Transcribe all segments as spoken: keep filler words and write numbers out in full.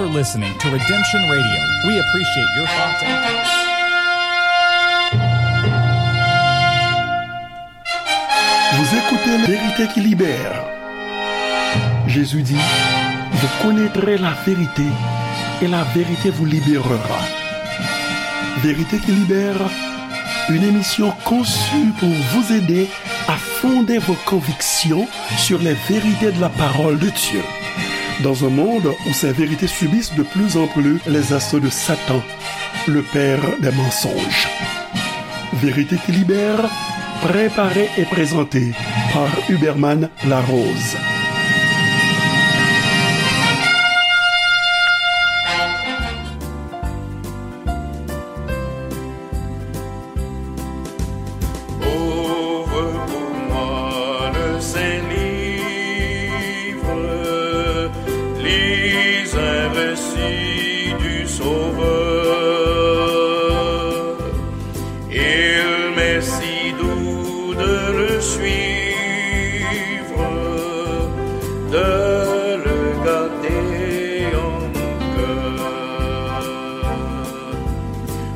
for listening to Redemption Radio. We appreciate your thoughts and Vous écoutez La Vérité qui libère. Jésus dit, vous connaîtrez la vérité et la vérité vous libérera. Vérité qui libère, une émission conçue pour vous aider à fonder vos convictions sur les vérités de la parole de Dieu. Dans un monde où ces vérités subissent de plus en plus les assauts de Satan, le père des mensonges. Vérité qui libère, préparée et présentée par Huberman Larose. Ouvre pour moi le saint livre, lis un récit du Sauveur. Il m'est si doux de le suivre, de le garder en mon cœur.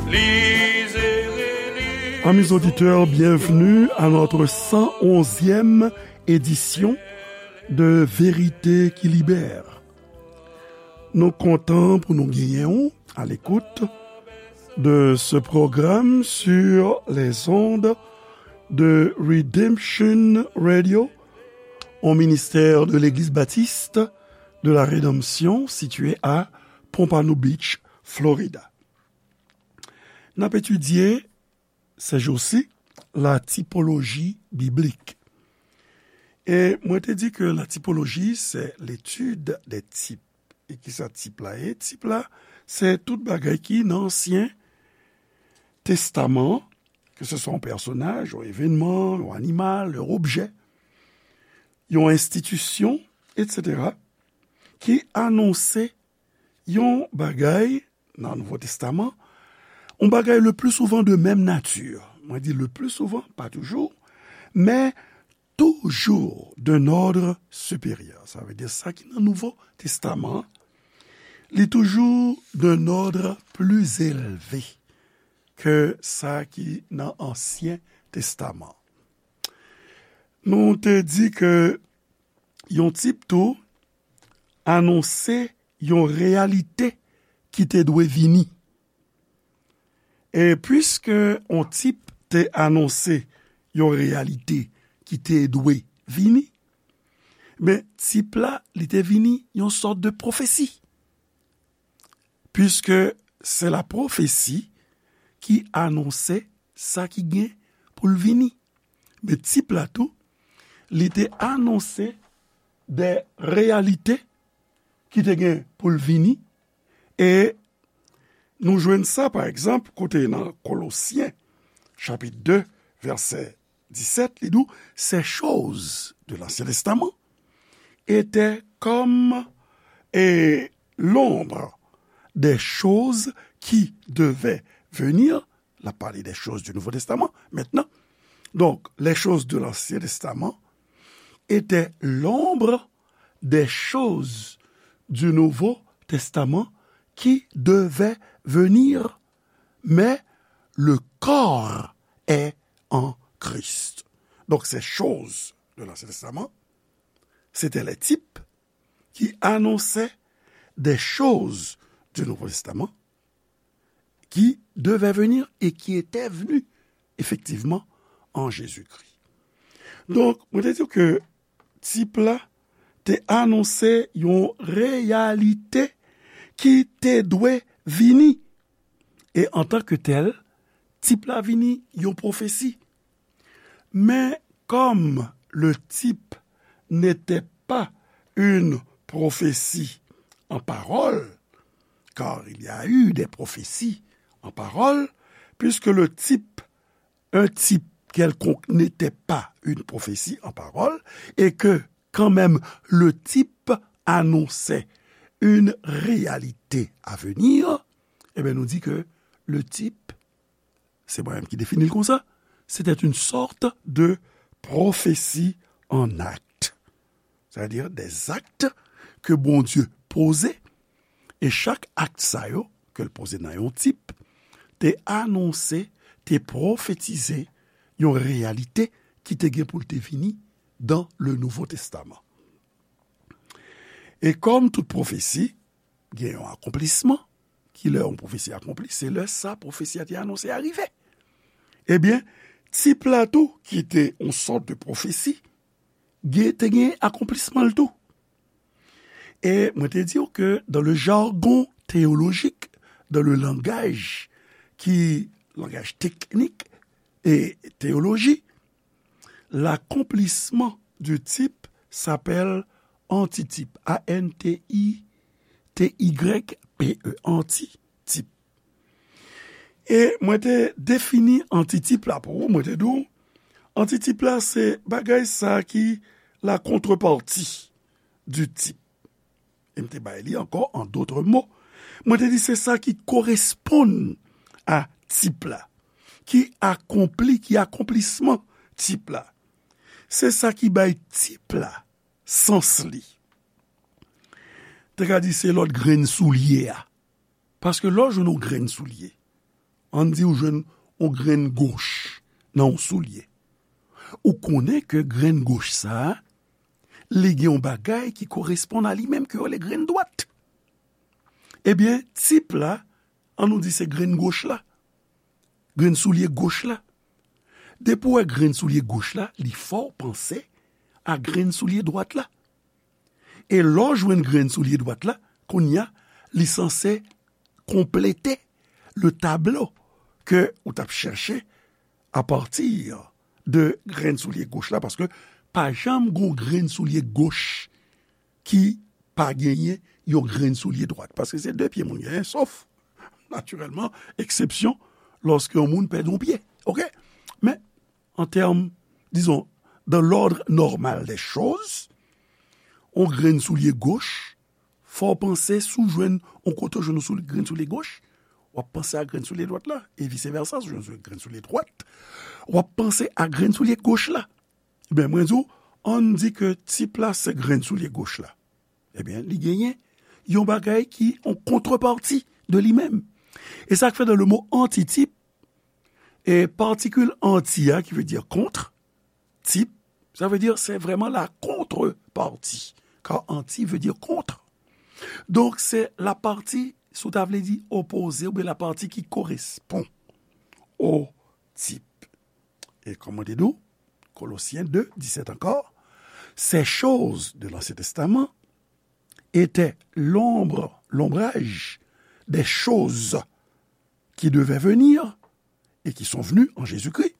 Lisez et lisez. Amis auditeurs, bienvenue à notre cent onzième édition de Vérité qui libère. Nou kontan pou nou genyen w à l'écoute de ce programme sur les ondes de Redemption Radio, au ministère de l'Église baptiste de la Rédemption situé à Pompano Beach, Florida. N ap etidye ces jours-ci la typologie biblique. E mwen te di ke la typologie, c'est l'étude des types. E kisa tip la ye? Tip la, se tout bagay ki nan Ansyen Testaman, ke se swa yon pèsonaj, yon evènman, yon animal, yon objè, yon enstitisyon, etsetera, ki anonse yon bagay nan Nouvo Testaman, yon bagay le plus souvent de même nature. Mwen di le plus souvent, pa toujou, men toujours d'un ordre supérieur. Sa vle di sa ki nan Nouvo Testaman, li toujou d'un ordre plus élevé ke sa ki nan Ansyen Testaman. Nou te di ke yon tip tou anonse yon reyalite ki te dwe vini. E piske yon tip te anonse yon reyalite ki te dwe vini, men tip la, li te vini yon sòt de pwofesi. Piske se la pwofesi ki anonse sa ki gen pou l vini. Men tip la tou, li te anonse de reyalite ki te gen pou l vini. E nou jwenn sa, pa egzanp, kote nan Kolosyen, chapit de, vèsè disèt, li di w, ces choses de l'Ancien Testament étaient comme, et, l'ombre des choses qui devaient venir. L ap pale des choses du Nouveau Testament maintenant. Donc, les choses de l'Ancien Testament étaient l'ombre des choses du Nouveau Testament qui devaient venir, mais le corps est en Christ. Donc, ces choses de l'Ancien Testament, c'était les types qui annonçaient des choses du Nouveau Testament qui devaient venir et qui étaient venues effectivement en Jésus-Christ. Donk, mwen te di ke tip la te anonse yon reyalite ki te dwe vini. E antanke tèl, tip la vini yon pwofesi. Mais comme le type n'était pas une prophétie en parole, car il y a eu des prophéties en parole, puisque le type, un type quelconque n'était pas une prophétie en parole, et que quand même le type annonçait une réalité à venir, eh bien, nous dit que le type c'est moi-même qui définis le comme ça, c'était une sorte de prophétie en acte. C'est-à-dire des actes que Bondye poze E chak akt sa yo, ke l poze nan yon tip, te anonse, te pwofetize yon reyalite ki te gen pou l te vini dans le Nouveau Testament. E kòm tout pwofesi, gen yon akonplisman, ki lè yon pwofesi akonpli, se lè sa pwofesi a te anonse a rive. Ebyen, tip la tou, ki te yon sòt de pwofesi, gen, te gen akonplisman l tou. E mwen te di w ke dans le jargon théologique, dans le langage ki langaj teknik e teyoloji, l'accomplissement du type s'appelle antitip, A N T I T Y P E, antitip. E mwen te defini antitip la pou ou, mwen te di w, antitip la se bagay sa ki la contrepartie du type. E m te bay li ankò an dòt mo. Mwen te di se sa ki koresponn a tip la, ki akonpli, ki akonplisman tip la. Se sa ki bay tip la sans li. Te ka di se lòt grenn soulye a. Paske lè w jwenn yon grenn soulye, ann di w jwenn yon grenn goch nan yon soulye. Ou konnen ke grenn goch sa a, li gen yon bagay ki koresponn a li menm ke yo rele grenn dwat. Ebyen, tip la, ann nou di se grenn goch la. Grenn soulye goch la. Depi w wè grenn soulye goch la, li fè w panse a grenn soulye dwat la. E lè w jwenn grenn soulye dwat la, kounye a, li sanse konplete le tablo ke ou t ap chèche apati de grenn soulye goch la, paske pa janm gon grenn soulye goch ki pa genyen yon grenn soulye dwat, paske se de pye moun genyen, sof, natirèlman, eksepsyon, lòske yon moun pèdi yon pye. Oke? Men, an tèm, dizon, dans l'ordre normal des choses, yon grenn soulye goch, fò w panse si w jwenn yon kote w jwenn yon soul-, grenn soulye goch, w ap panse a grenn soulye dwat la, e vice versa, si w jwenn grenn soulye dwat, w ap panse a grenn soulye goch la. Ebyen, mwen di w, ann di ke tip la se grenn soulye goch la. Ebyen, li genyen yon bagay ki yon kontrepati de li menm. E sa k fè dans le mot antitip, e patikil anti a, ki vle di kont, tip, sa vle di se vrèman la contrepartie. Car anti vle di kont. Donk, se la pati, si w ta vle di opoze, oubyen la pati ki korespon o tip. E kòm mwen te di w, Colossiens deux, dix-sept encore, ces choses de l'Ancien Testament étaient l'ombre, l'ombrage des choses qui devaient venir et qui sont venues en Jésus-Christ.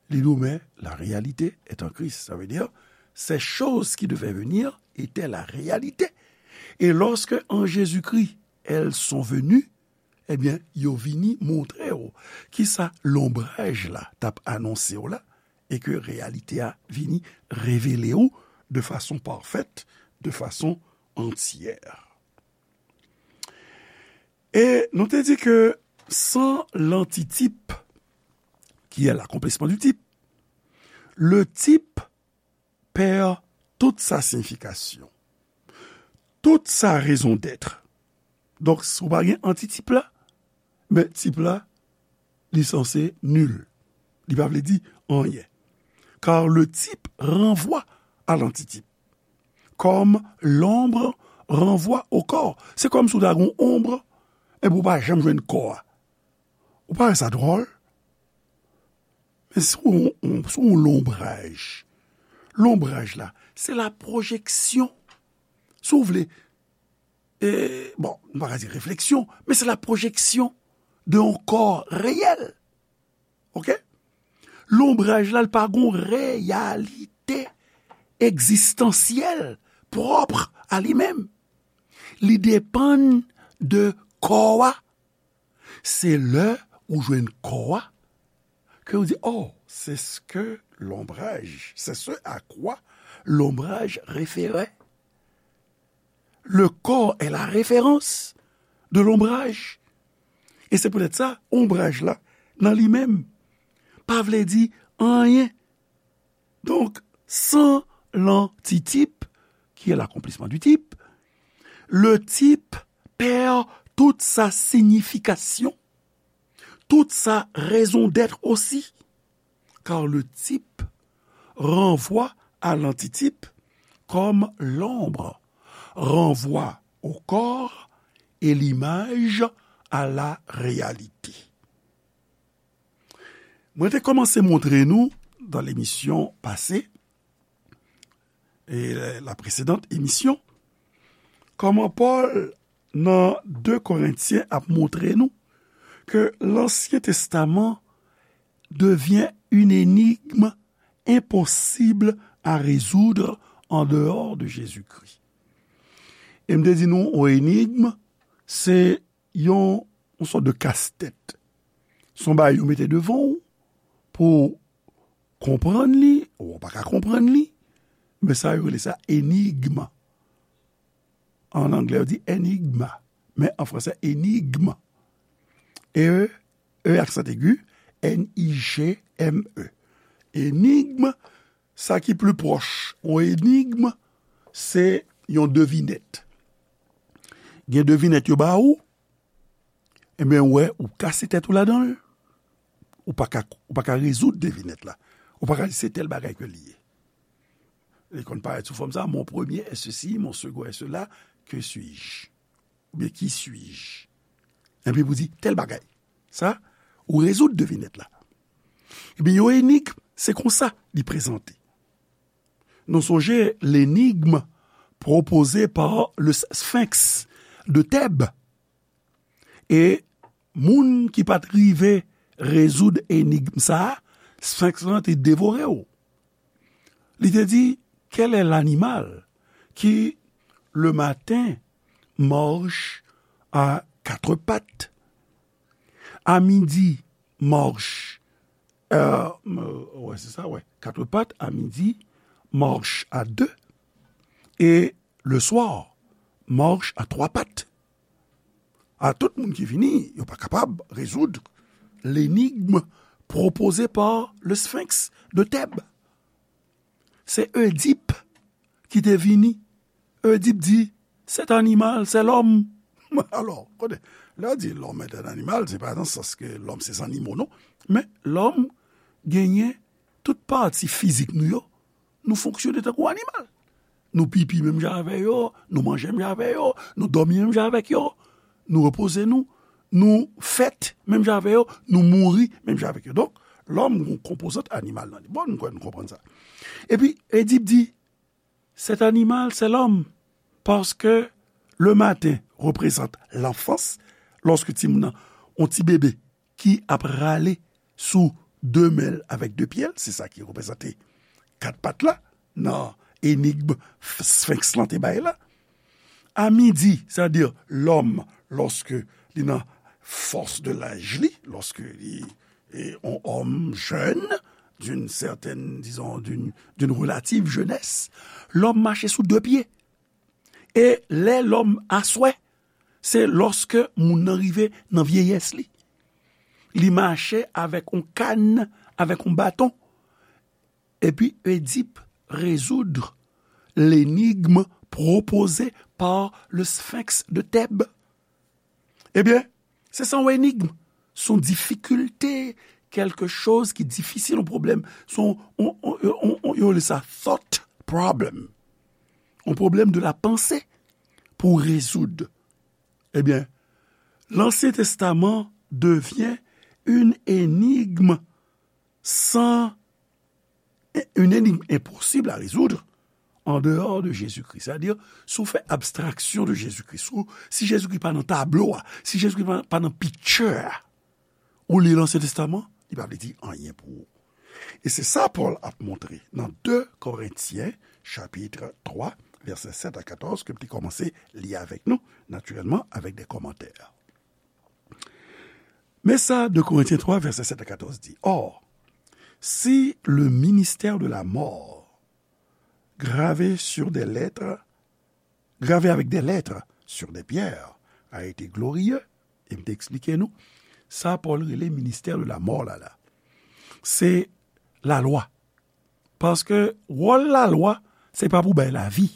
Li di w, men la réalité est en Christ. Sa vle di, ces choses qui devaient venir étaient la réalité. Et lorsque en Jésus-Christ, elles sont venues, ebyen, yo vini montre w kisa lonbraj la t ap anonse w la, e ke reyalite a vini revele w de fason pafèt, de fason antyè. E nou te di ke sans l'antitype, qui est l'accomplissement du type, le type perd toute sa signification, toute sa raison d'être. Donk, si w pa gen antitip la, men tip la, li sanse nil. Li pa vle di anyen. Car le type renvoie à l'antitype, comme l'ombre renvoie au corps. Se kòmsi w ta gen yon onb, epi w pa janm jwenn kò a. Ou pa wè sa dwòl? Men si w, w, si w lonbraj, lonbraj la, se la pwojeksyon. Si w vle, e, bon, m pa ka di refleksyon, men se la pwojeksyon de yon kò reyèl. Oke? Lonbraj la, l pa gon reyalite egzistansyèl pwòp a li menm. Li depann de kò a. Se lè ou jwenn kò a ke ou di, oh, c'est ce que l'ombrage, c'est ce à quoi l'ombrage référait. Le corps est la référence de l'ombrage. E se poutèt sa, onbraj la, nan li menm, pa vle di anyen. Donc, sans l'antitype, qui est l'accomplissement du type, le type perd toute sa signification, toute sa raison d'être aussi, car le type renvoie à l'antitype comme l'ombre renvoie au corps et l'image à la réalité. Mwen te kòmanse montre nou, dans l'émission passée, e la précédente émission, kòman Pòl nan de Korentyen ap montre nou ke Lansyen Testaman devient une énigme impossible à résoudre en dehors de Jésus-Christ. E m te di nou, yon enigm, se yon, yon sòt de kastèt. Se yon bagay yo mete devan w pou w konprann li, ou pa ka konprann li, men sa yo rele sa enigm. An anglè, yo di enigma, men an fransè, enigm. E, E aksan egi, N I G M E. Enigm, sa ki pli pwòch yon enigm, se yon devinèt. Gen devinèt yo ba ou, ebyen, ou wè, ou kase tèt ou ladan l, ou pa ka, ou pa ka rezoud devinèt la. Ou pa ka di se tèl bagay ke li ye. Li konn parèt sou fòm sa, mon premier est ceci, mon second est cela, que suis-je? Oubyen qui suis-je? Epi pou di tèl bagay. Sa, ou rezoud devinèt la. Ebyen, yon enigm, se konsa li prezante. Nou sonje l'énigme proposée par le Sphinx de Thèbes. E moun ki pa t rive rezoud enigm sa a, Sphinx lan te devore w. Li te di, quel est l'animal qui, le matin, marche à quatre pattes, à midi, marche, euh, euh, ouais, c'est ça, ouais, quatre pattes, à midi, marche à deux, et le soir, marche à trois pattes. A tout moun ki vini, yo pa kapab rezoud l'énigme proposée par le Sphinx de Thèbes. Se Oedip ki te vini. Oedip di, cet animal, c'est l'homme. Alò, kote, lè yo di l'homme est un animal, se pa nan sans ke lòm se zannimo, non. Men lòm genyen tout pati fizik nou yo, nou fonksyone tankou animal. Nou pipi menm jan avè yo, nou manje menm jan avè yo, nou dòmi menm jan avèk yo, nou repoze nou, nou fèt menm jan avè yo, nou mouri menm jan avèk yo. Donk, lòm gon konpozant animal nan li. Bon, nou kwè nou konprann sa. Epi, Edip di, cet animal, c'est l'homme, parce que le matin représente l'enfance, lòske timoun nan, yon ti bebe, ki ap rale sou de men l avèk de pye l, se sa ki reprezante kat pat la nan enigm Sphinx lan te bay la. A midi, sètadi lòm, lòske li nan fòs de laj li, lòske li e yon òm jèn, d'une certaine, disons, d'une, d'une relative jeunesse, lòm mache sou de pye. E lè lòm aswè, se lòske moun nan rive nan vyeyès li. Li mache avèk yon kann, avèk yon baton. Epi Edip rezoud l'énigme proposée par le Sphinx de Thèbes. Ebyen, se sa yon enigm, se yon difikilte, kèlke choz ki difisil, yon pwoblèm, se yon, yon, yon, yon, yon, yo rele sa thought problem. Yon pwoblèm de la panse pou rezoud. Ebyen, Lansyen Testaman devyen une énigme sans, une énigme impossible à résoudre en dehors de Jésus-Christ. Sètadi, si w fè abstraksyon de Jezikri, si w, si Jezikri pa nan tablo a, si Jezikri pa, pa nan picture a, ou li Lansyen Testaman, li pa vle di anyen pou ou. E se sa Pòl ap montre nan de Korentyen, chapit twa, vèsè sèt a katòz, ke m te kòmanse li avèk nou, natirèlman, avèk de kòmantè. Men sa de Korentyen twa, vèsè sèt a katòz di, Or, si le ministère de la mort, gravé sur des lettres, gravé avec des lettres sur des pierres, a été glorieux, e m te eksplike nou, sa Pòl rele ministè de la mò la, la. Se lalwa. Paske wòl lalwa, se pa pou bay lavi.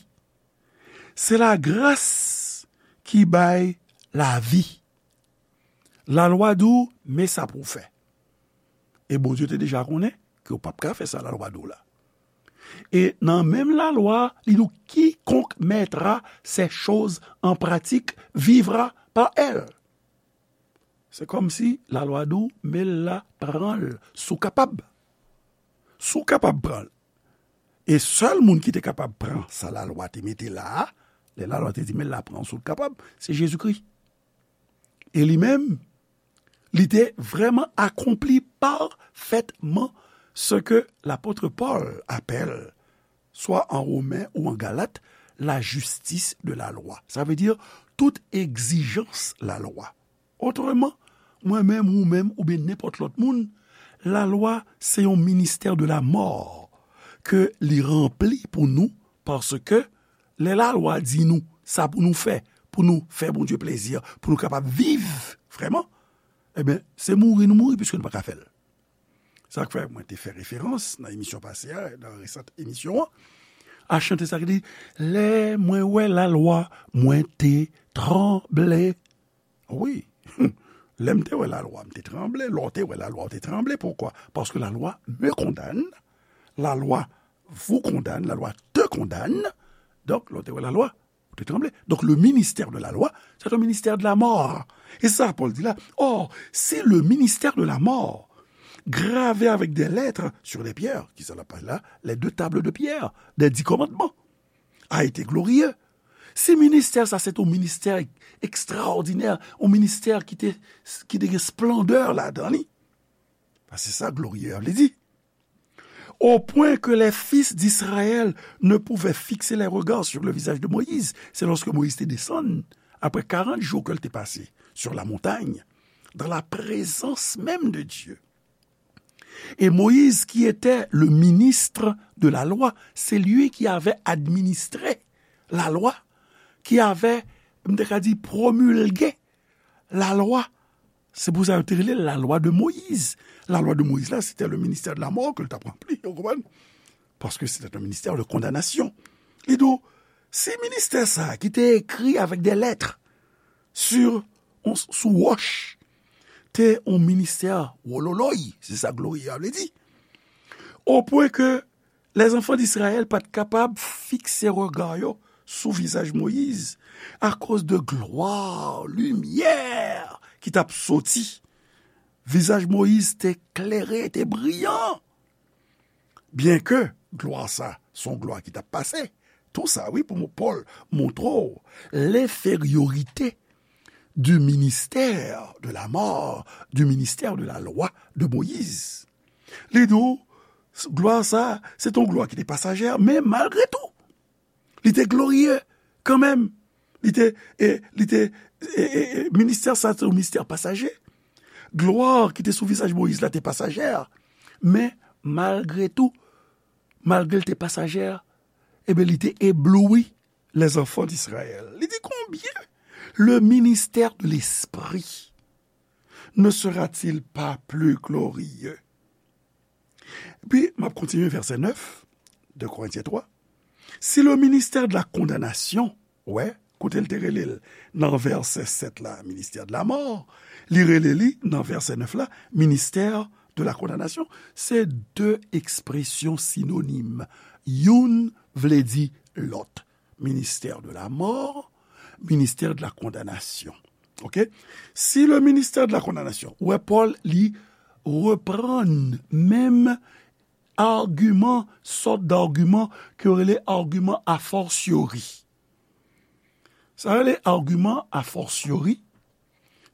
Se lagras ki bay lavi. Lalwa di w, men sa pou w fè. E Bondye te deja konnen ke w p ap ka fè sa lalwa di w la. E nan menm lalwa, li di w, quiconque mettra ces choses en pratique vivra par elles. Se kòmsi lalwa di w, men l la, pran l, si w kapab. Si w kapab pran l. E sèl moun ki te kapab pran sa lalwa te mete la a, lè lalwa te di, men l la, pran l si w kapab, se Jezikri. E li menm, li te vrèman akonpli pafètman ce que l'apôtre Paul appelle, soit en Romain ou en Galate, la justice de la loi. Sa vle di tout egzijans lalwa. Otreman, mwen menm, ou menm, oubyen nenpòt lòt moun, lalwa se yon ministè de la mò ke li ranpli pou nou, paske lè lalwa di nou sa pou nou fè, pou nou fè Bondye plezi, pou nou kapab viv vrèman, ebyen, se mouri nou mouri piske nou pa ka fè l. Sa k fè mwen te fè referans nan emisyon pase a, nan resant emisyon an, a chante sa ki di, lè mwen wè lalwa, mwen te tranble. Wi, lè m te wè lalwa, m te tranble. Lè w te wè lalwa, w te tranble. Poukwa? Paske lalwa me kondane, lalwa vous condamne, lalwa te kondane. Donk, lè w te wè lalwa, ou te tranble. Donc, le ministère de la loi, c'est un ministère de la mort. E sa Pòl di la, or, si le ministère de la mort, gravé avec des lettres sur des pierres, ki sa l ap pale la, les deux tables de pierre, des dix commandements, a été glorieux. Si ministè sa se te yon ministè ekstraòdinè, yon ministè ki te, ki te gen splandè ladan li, paske se sa glorieux a vle di. Au point que les fils d'Israël ne pouvaient fixer les regards sur le visage de Moïse. C'est lorsque Moïse te desann, après quarante jours ke l te pase sur la montagne, dans la présence même de Dieu. Et Moïse, qui était le ministre de la loi, c'est lui qui avait administré la loi, qui avait, m te ka di, promulgué la loi. Se pou sa yo te rele la loi de Moïse. La loi de Moïse la, c'était le ministère de la mort ke l t ap ranpli, ou konprann? Paske c'était un ministère de condamnation. Li di w, si ministè sa a ki te ekri avec des lettres sur, on, sou wòch, te yon ministè wololoy, se sa glorieux a vle di. Au point que les enfants d'Israël pa t kapab fikse rega yo sou vizaj Moyiz akoz de glwa, limyè ki t ap soti. Vizaj Moyiz te klere, te briyan. Byenke glwa sa se yon glwa ki t ap pase, tou sa, wi, pou Pòl montre w lenferyorite du ministère de la mort, du ministère de la loi de Moïse. Li di w, glwa sa, se t on glwa ki te pasajè, men malgre tou, li te gloriye kanmenm. Li te, e, li te, e, e, e, ministè sa, se yon ministè pasaje. Glwa ki te sou vizaj Moyiz la te pasajè. Men, malgre tou, malgre l te pasajè, ebyen, li te ebloui les enfants d'Israël. Li di, combien le ministère de l'Esprit ne sera-t-il pas plus glorieux? Epi, m ap kontinye vèsè nèf, de Korentyen twa. Si le ministère de la condamnation, wè, kote l te rele l nan vèsè sèt la, ministère de la mort, li rele li nan vèsè nèf la, ministère de la condamnation, se de ekspresyon sinonim. Youn vle di lòt. Ministère de la mort, ministère de la condamnation. Ok? Si le ministère de la condamnation, ou wè Pòl, li reprann menm agiman, sòt d'agiman ke yo rele agiman a fortiori. Sa yo rele agiman a fortiori,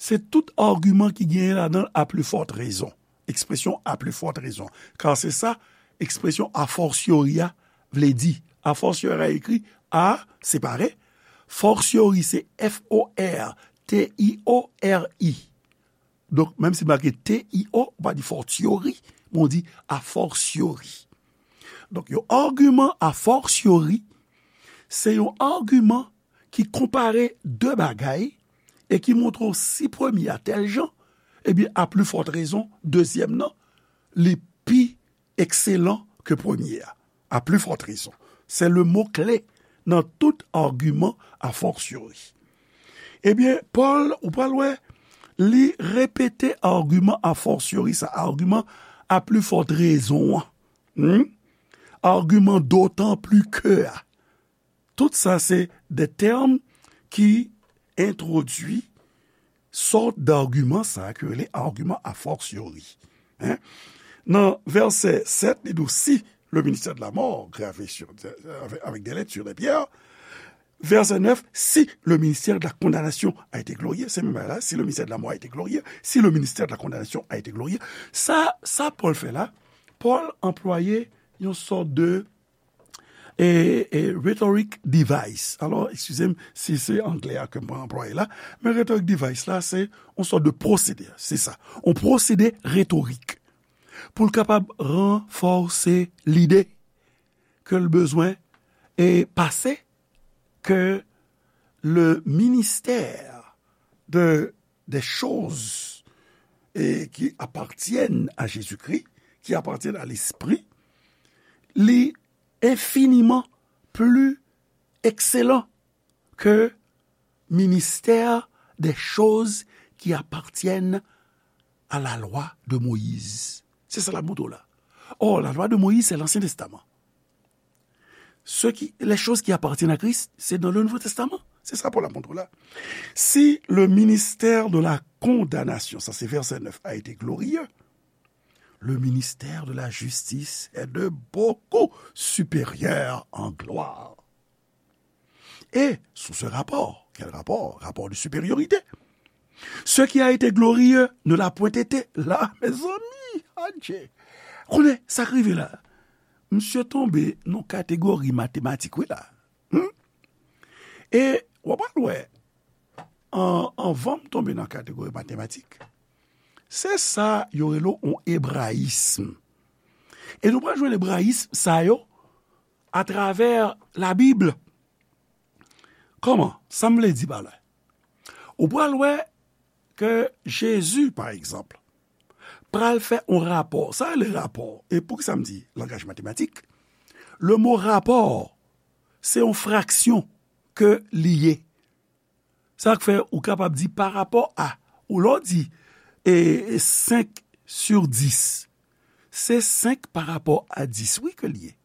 se tout agiman ki genyen ladan l à plus forte raison. Ekspresyon à plus forte raison. Kar se sa ekspresyon a fortiori a vle di. A fortiori a ekri A separe, fortiori se F O R T I O R I. Donk, menm si make T I O, ou pa di fortiori, men w di a fortiori. Donk, yon agiman a fortiori, se yon agiman ki konpare de bagay e ki montre w si premye a tèl jan, ebyen, a pli fòt rezon, dezyèm nan, li pi ekselan ke premye a. A pli fòt rezon. Se le mo kle nan tout agiman a fortiori. Ebyen, Pòl, ou pral wè, li repete agiman a fortiori sa, agiman à plus forte raison an. Hmm? Agiman d'autant plus que a. Tout sa se de tèm ki entwodui sòt d'agiman sa a ki rele agiman a fortiori. Hein? Nan vèsè sèt, li di w, si le ministère de la mort gravé sur, avec, avec des lettres sur des pierres, verset neuf, si le ministère de la condamnation a été glorieux, se menm bagay la, si le ministère de la mort a été glorieux, si le ministère de la condamnation a été glorieux, sa, sa Pòl fè la, Pòl anplwaye yon sòt de e, e, rhetoric device. Alò, eskize m si se anglè a ke m anplwaye la, men rhetoric device la, se yon sòt de pwosede, se sa. Yon pwosede retorik. Pou l kapab ranfòse lide ke l bezwen e pase ke le ministère de, des choses e, qui appartiennent à Jésus-Christ, qui appartiennent à l'Esprit, li infiniman pli ekselan ke ministère des choses qui appartiennent à la loi de Moïse. Se sa l ap montre w la. Or, la loi de Moïse, c'est l'Ancien Testament. Ce qui, les choses qui appartiennent à Christ, c'est dans le Nouveau Testament. Se sa Pòl ap montre w la. Si le ministère de la condamnation, sa se vèsè nèf, a été glorieux, le ministère de la justice est de beaucoup supérieur en gloire. Et sous ce rapport, quel rapport? Rapport de supériorité. Ce qui a été glorieux ne l'a point été. La, mezanmi, adje. Konnen sa k rive la. Misye tonbe nan kategori matematik, wi la. Hmm? E w ap al wè, an, anvan m tonbe nan kategori matematik, se sa yo rele yon ebrayism. E nou pral jwenn ebrayism sa yo atravè Labib. Kòman? Sa m vle di pa la? Ou pral wè ke Jezi, pa egzanp, pral fè yon rapò. Sa rele rapò. E poukisa m di langaj matematik? Le mo rapò, se yon fraksyon ke li ye. Sa k fè ou kapab di pa rapò a, ou lè w di, e, senk sur dis, se senk pa rapò a dis, wi, ke l ye.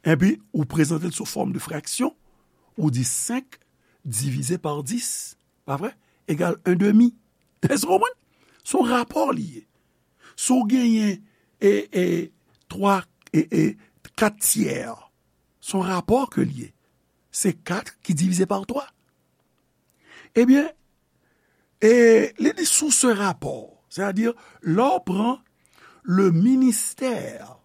Epi, ou prezante l sou fòm de fraksyon, ou di senk divize pa dis, pa vre? Egal un demi. Èske w konprann? Se yon rapò li ye. Si w genyen, e, e, twa, e, e, kat tyè, se yon rapò ke li ye. Se kat ki divize pa twa. Ebyen, e li di sou se rapò, sètadi, lè w pran le ministère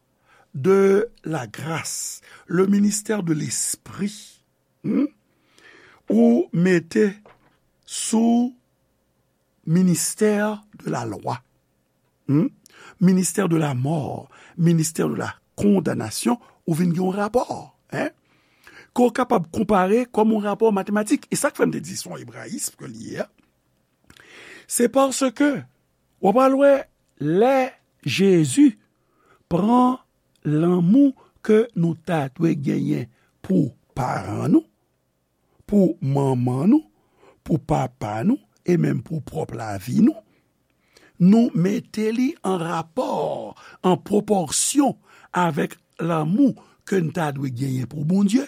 de la grâce, le ministère de l'esprit, hmm, ou mete sou ministère de la loi, hmm, ministère de la mort, ministère de la condamnation, ou vin gen yon rapò, hein, ke w kapab konpare kòm yon rapò matematik. E sa k fè m te di se yon ebrayism ke li ye a, se paske w ap al wè lè Jezi pran lanmou ke nou ta dwe genyen pou paran nou, pou manman nou, pou papa nou, e menm pou pwòp lavi nou, nou mete li an rapò, an pwopòsyon avèk lanmou ke n ta dwe genyen pou Bondye,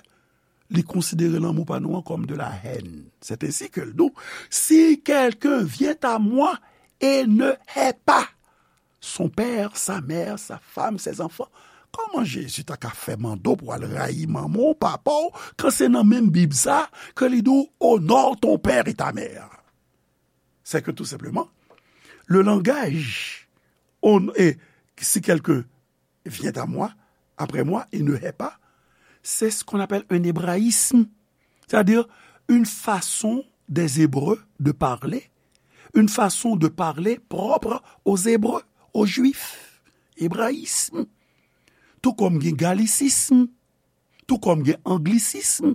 li konsidere lanmou pa nou an kòm de la haine. C'est ainsi que l di, si quelqu'un vient à moi et ne hait pas son père, sa mère, sa femme, ses enfants. Kòman Jezi ta ka fè mande w pou w al rayi manman w, papa w, kan se nan menm Bib sa ke li di w, honore ton père et ta mère? C'est que tout simplement, le langage, on, et si quelqu'un vient à moi, après moi, et ne hait pas, c'est ce qu'on appelle un hébraïsme, c'est-à-dire une façon des Hébreux de parler, une façon de parler propre aux Hébreux, aux Juifs, ebrayism, tou kòm gen galisism, tou kòm gen anglisism,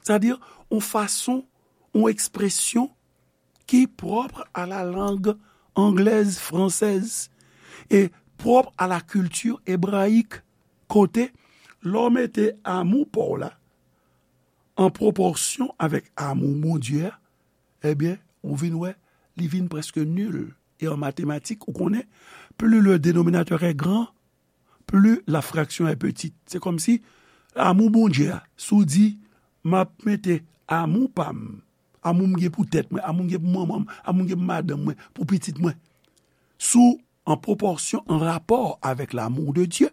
sètadi yon fason, yon ekspresyon ki pwòp a la langue anglaise, française, e pwòp a la culture hébraïque, kote lè w mete amou pa w la an pwopòsyon avèk amou Bondye a, ebyen, ou vin wè, li vin prèske nil. E an matematik, ou konnen, plus le dénominateur est grand, plus la fraction est petite. Se kòmsi amou Bondye a, si w di, "M ap mete amou pa m, amou m gen pou tèt mwen, amou m gen pou manman m, amou m gen pou madanm mwen, pou pitit mwen," si w an pwopòsyon, an rapò avèk l'amour de Dieu,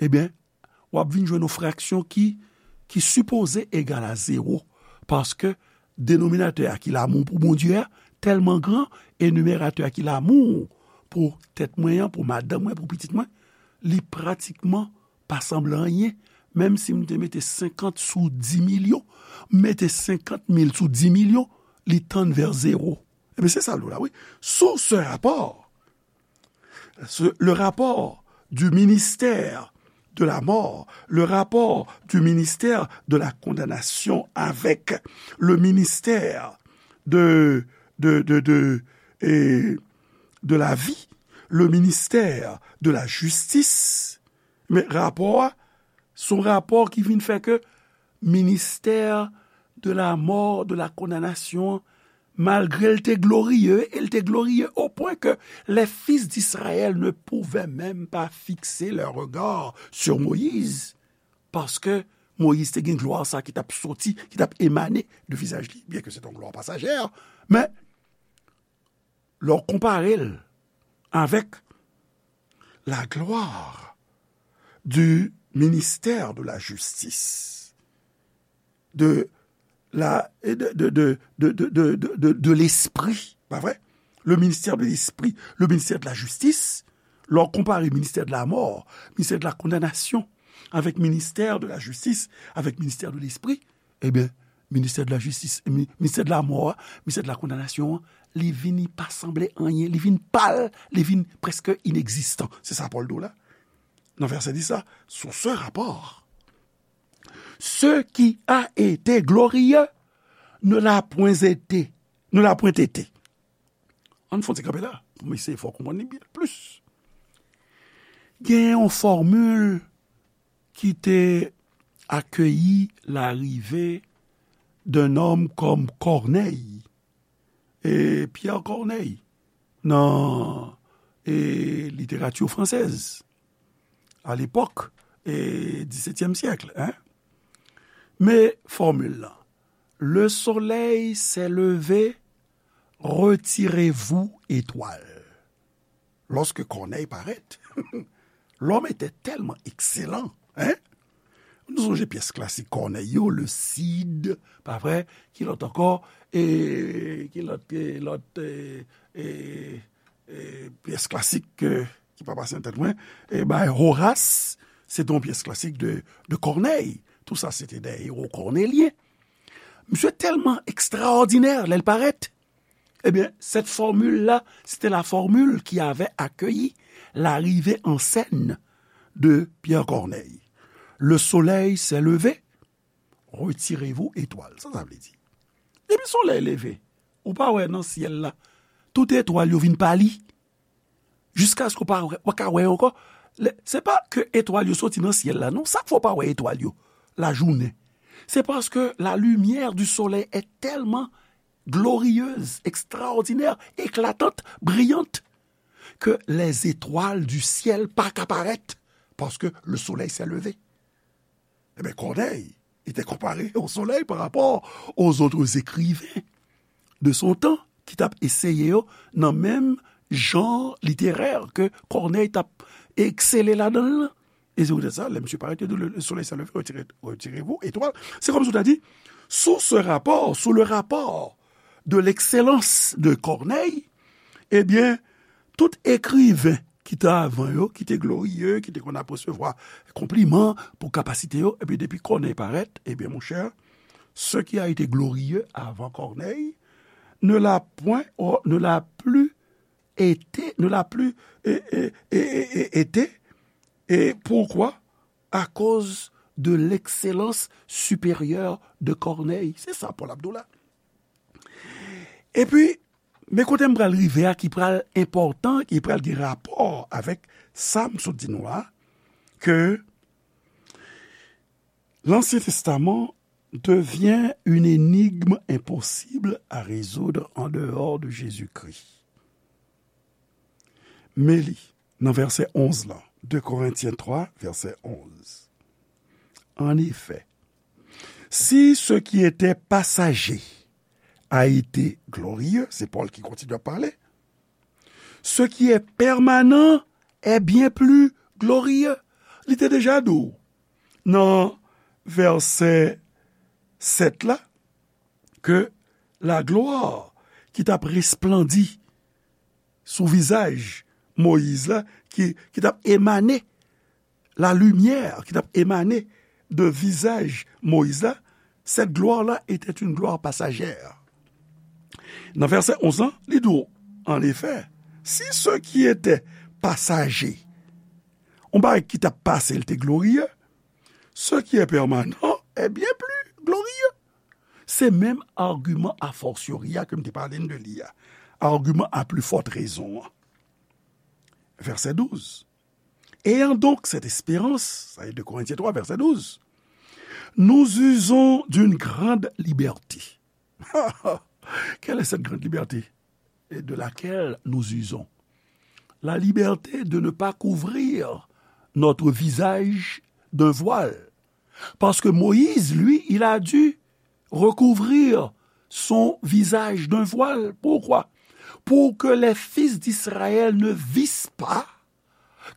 ebyen, w ap vin jwenn yon fraksyon ki, ki sipoze egal a zewo, paske denominatè a ki l'amour pou Bondye a tèlman gran, e nimeratè a ki l'amour pou tèt mwen an, pou madanm mwen, pou pitit mwen, li pratikman pa sanble anyen. Menm si m te mete senkant sou di milyon, m mete senkant mil sou di milyon, li tann vè zewo. Ebyen, se sa l di w la, wi. Sous ce rapport, ce- le rapport du ministère de la mort, le rapport du ministère de la condamnation avec le ministère de, de, de, de, et de la vie, le ministère de la justice. Men rapò a, se yon rapò ki vin fè ke ministère de la mort, de la condamnation, malgre l te glorieux, e l te glorieux au point que les fils d'Israël ne pouvaient même pas fixer leur regard sur Moïse, paske Moyiz te gen glwa sa ki t ap soti, ki t ap emane de vizaj li, byen ke se te yon glwa pasajè, men lè w konpare l avèk la gloire du ministère de la justice, de la, de, de, de l'esprit, pa vre? Le ministère de l'esprit, le ministère de la justice, lè w konpare ministère de la mort, ministère de la condamnation, avèk ministère de la justice, avèk ministère de l'esprit, ebyen, ministère de la justice, mi- ministère de la mort, ministère de la condamnation, li vini pa sanble anyen, li vin pal, li vin prèske inegzistan. Se sa Pòl di w la. Nan vèsè dis la, sous ce rapport, ce qui a été glorieux ne l'a point été, ne l'a point été. Ann fè yon ti kanpe la, pou m eseye fè w konprann li byen plis. Gen yon fòmil ki te akeyi larive d'un homme comme Corneille, e Pierre Corneille, nan, e, literati fransèz, a lepòk, e, disetyèm syèk, en. Men fòmil lan, le soleil s'est levé, retirez-vous, étoiles. Lorsque Corneille paraît, l'homme était tellement excellent, hein? Nou sonje pyès klasik Corneille yo, Le Cid, pa vre? Ki lòt ankò? E ki lòt, e lòt, e, e, e pyès klasik, e, ki pa pase nan tèt mwen, e bay Horace, se te yon pyès klasik de, de Corneille. Tout sa, se te des héros cornéliens. Misye tèlman ekstraòdinè lè l parèt. Ebyen, cette formule-là, c'était la formule qui avait accueilli l'arrivée en scène de Pierre Corneille. Le soleil s'est levé, retirez-vous, étoiles. Sa sa vle di? Depi solèy leve, ou pa wè nan syèl la, tout etwal yo vin pali. Jiskaske w pa wè, w pa ka wè yo ankò. Lè- Se pa ke etwal yo soti nan syèl la, non. Sa k fè w pa wè etwal yo lajounen? C'est parce que la lumière du soleil est tellement glorieuse, extraordinaire, éclatante, brillante, que les étoiles du ciel pa ka parèt, parce que le soleil s'est levé. Ebyen, Corneille, il était comparé au soleil par rapport aux autres écrivains de son temps, ki t ap eseye yo nan menm jan literè ke Corneille t ap eksele ladan l lan. E se poutèt sa, lè misye parèt, yo di, le, le soleil s'est levé, retirez, retirez-vous, étoiles. Se kòmsi w ta di, sous ce rapport, sous le rapport de l'excellence de Corneille, ebyen, tout ekriven ki te avan yo, ki te gloriye, ki te konn ap resevwa konpliman pou kapasite yo, epi depi Corneille parèt, ebyen, monchè, ce qui a été glorieux avant Corneille ne l'a point, ne l'a plus été, ne l'a plus, e, e, e, e, e, été. Et pourquoi? À cause de l'excellence supérieure de Corneille. Se sa Pòl ap di w la. Epi, men kote m pral rive a ki pral enpòtan, ki pral gen rapò avèk sa m sot di nou a, ke Lansyen Testaman devient une énigme impossible à résoudre en dehors de Jésus-Christ. Men li, nan vèsè onz lan, de Korentyen twa, vèsè onz. En effet, si ce qui était passager a été glorieux, se Pòl ki kontinye ap pale, ce qui est permanent est bien plus glorieux. Li te deja di w nan vèsè sèt la ke laglwa ki t ap resplandi sou vizaj Moyiz la, ki, ki t ap emane, la limyè ki t ap emane de vizaj Moyiz la, cette gloire-là était une gloire passagère. Nan vèsè onz lan, li di w, en effet, si ce qui était passager, yon bagay ki t ap pase, l te gloriye, ce qui est permanent est bien plus glorieux. Se menm agiman a fortiori a ke m te pale n de li a. Agiman a plus forte raison an. Vèsè douz. Ayant donc cette espérance, sa e de Korentyen twa, vèsè douz, nous usons d'une grande liberté. Quelle est cette grande liberté de laquelle nous usons? La liberté de ne pas couvrir notre visage d'un voile. Parce que Moïse, lui, il a dû recouvrir son visage d'un voile. Pourquoi? Pour que les fils d'Israël ne vissent pas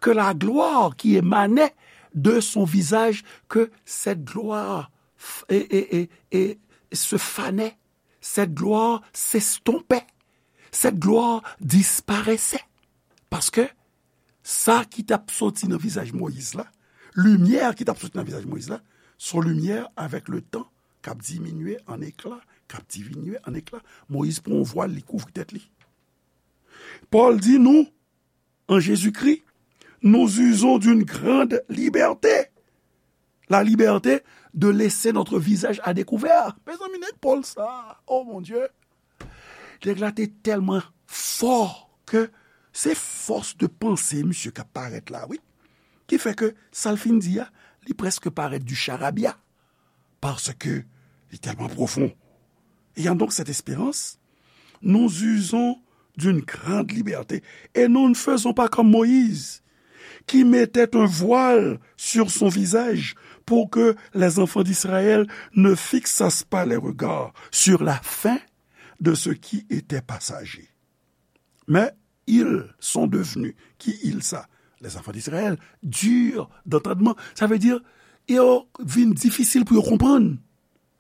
que la gloire qui émanait de son visage, que cette gloire f-, et, et, et, et se fanait, cette gloire s'estompait, cette gloire disparaissait. Paske sa ki t ap soti nan vizaj Moyiz la, limyè ki t ap soti nan vizaj Moyiz la, se yon limyè avèk le tan k ap diminye an ekla, k ap diminye an ekla. Moyiz pran yon vwal, li kouvri tèt li. Pòl di nou, en Jésus-Christ, nous usons d'une grande liberté. La liberté de laisser notre visage à découvert. Mezanmi, nèg Pòl sa, oh mon Dieu. Nèg la te tèlman fò ke se fòs de panse misye k ap parèt la, wi. Ki fè ke sa l fin di a, li prèske parèt du charabia. Parce que li tèlman pwofon. Ayant donc cette espérance, nous usons d'une grande liberté et nous ne faisons pas comme Moïse, qui mettait un voile sur son visage pour que les enfants d'Israël ne fixassent pas les regards sur la fin de ce qui était passager. Mais ils sont devenus, qui ils ça? Les enfants d'Israël, durs d'entendement. Sa vle di, yo vin difisil pou yo konprann.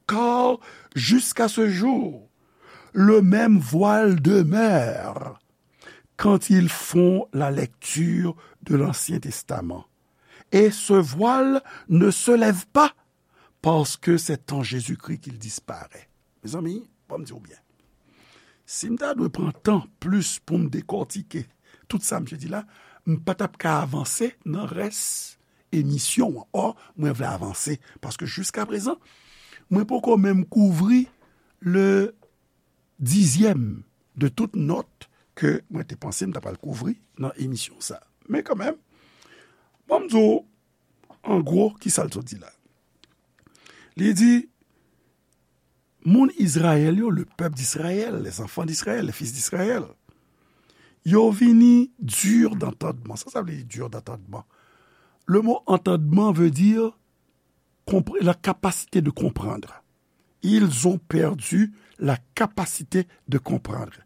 Car jusqu'à ce jour, le même voile demeure quand ils font la lecture de l'Ancien Testament. Et ce voile ne se lève pas parce que c'est en Jésus-Christ qu'il disparaît. Mezanmi, ban m di w byen. Si m ta dwe pran tan plis pou m dekòtike tout sa misye di la, m pa t ap ka avanse nan rès emisyon an. Ò, mwen vle avanse, paske jiska prezan, mwen poko menm kouvri le dizyèm de tout nòt ke mwen te panse m ta pral kouvri nan emisyon sa. Men kanmenm, bon, m di w, an gwo, ki sa l sot di la? Li di, moun Izrayèl yo, le peuple d'Israël, les enfants d'Israël, les fils d'Israël, yo vini dur d'entendement. Sa, sa vle di dur d'entendement? Le mot entendement veut dire compre-, la capacité de comprendre. Ils ont perdu la capacité de comprendre.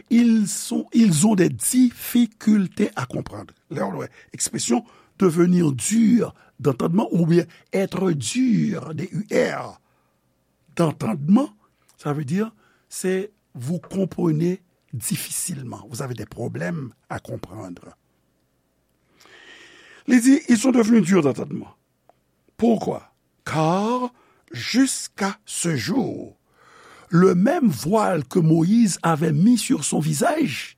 Ils sont, ils ont des difficultés à comprendre. Lè w wè ekspresyon devenir dur d'entendement oubyen être dur, D U R, d'entendement, ça veut dire, c'est vous comprenez difficilement. Vous avez des problèmes à comprendre. Li di, ils sont devenus durs d'entendement. Pourquoi? Car jusqu'à ce jour, le même voile que Moïse avait mis sur son visage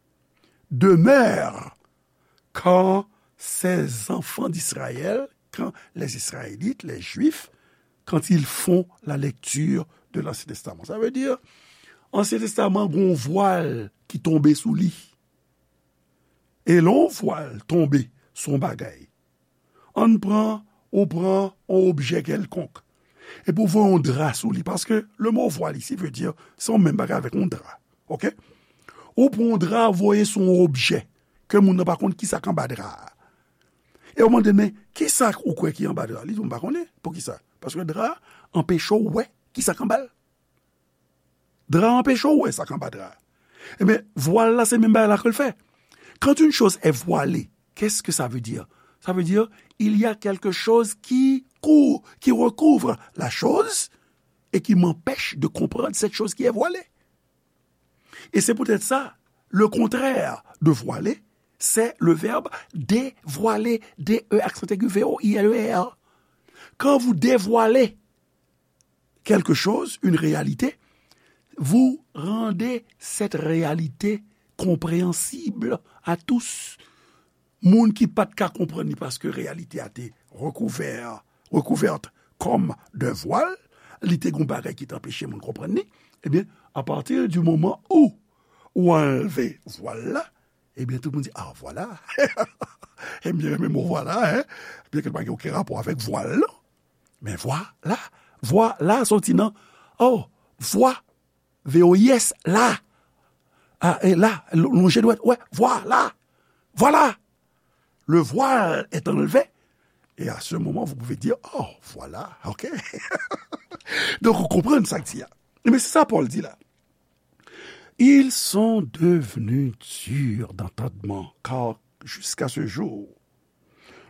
demeure quand ces enfants d'Israël, quand les Israélites, les Juifs, quand ils font la lecture de l'Ancien Testament. Sa vle di, Ansyen Testaman gon vwal ki tonbe sou li. E lè yon vwal tonbe sou yon bagay, ann pran, ou pran yon objè kèlkonk. Epi w voye yon dra sou li, paske le mo vwal isi vle di, se yon menm bagay avèk yon dra. Oke? Ou pran yon dra, voye sou yon objè, ke moun nan pa konn kisa k anba dra a. E w mande, men, kisa ou kwè ki anba dra a? Li di, m pa konnen. Poukisa? Paske dra a anpeche w wè kisa k anba l. Dra a anpeche w wè sa k anba dra a. Ebyen, vwal la, se menm bagay la ke l fè. Quand une chose est voilée, qu'est-ce que ça veut dire? Ça veut dire, il y a quelque chose qui cou-, qui recouvre la chose et qui m'empêche de comprendre cette chose qui est voilée. Et c'est peut-être ça, le contraire de voiler, c'est le verbe dévoiler, D E accent aigu V O I L E R. Quand vous dévoilez quelque chose, une réalité, vous rendez cette réalité compréhensible à tous. Moun ki pa t ka konprann li paske reyalite a te recouvert, recouverte comme d'un voile, li te gon bagay ki t anpeche moun konprann li, ebyen, à partir du moment où ou anlve vwal la, ebyen, tout moun di, ah, vwala. Ebyen, renmen mo vwala, hein? Byen ke l pa gen okenn rapò avèk vwal, non. Men vwala, vwala soti nan, oh, vwa, V O I S, la. Ah, e la, l-, lonje dwèt, ouais, voilà, voilà. Le voile est enlevé. Et à ce moment, vous pouvez dire, oh, voilà, ok. Donk, ou konprann sa k di a. Men se sa Pòl di la. Ils sont devenus durs d'entendement, car jusqu'à ce jour,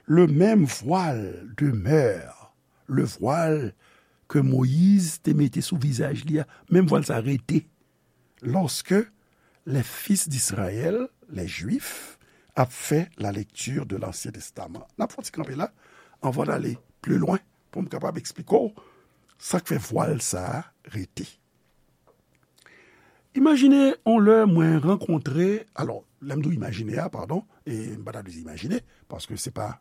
le même voile demeure, le voile que Moïse te mete sou vizaj li a, menm vwal sa rete. Lorsque les fils d'Israël, les Juifs, ap fè la lecture de l'Ancien Testament. N ap fè yon ti kanpe la, anvan n ale pli lwen, pou m kapab eksplike w sa k fè vwal sa a rete. Imajine yon lè mwen rankontre, alò, lè m di w imajine a, padon, e m pa ta dwe di imajine, paske se pa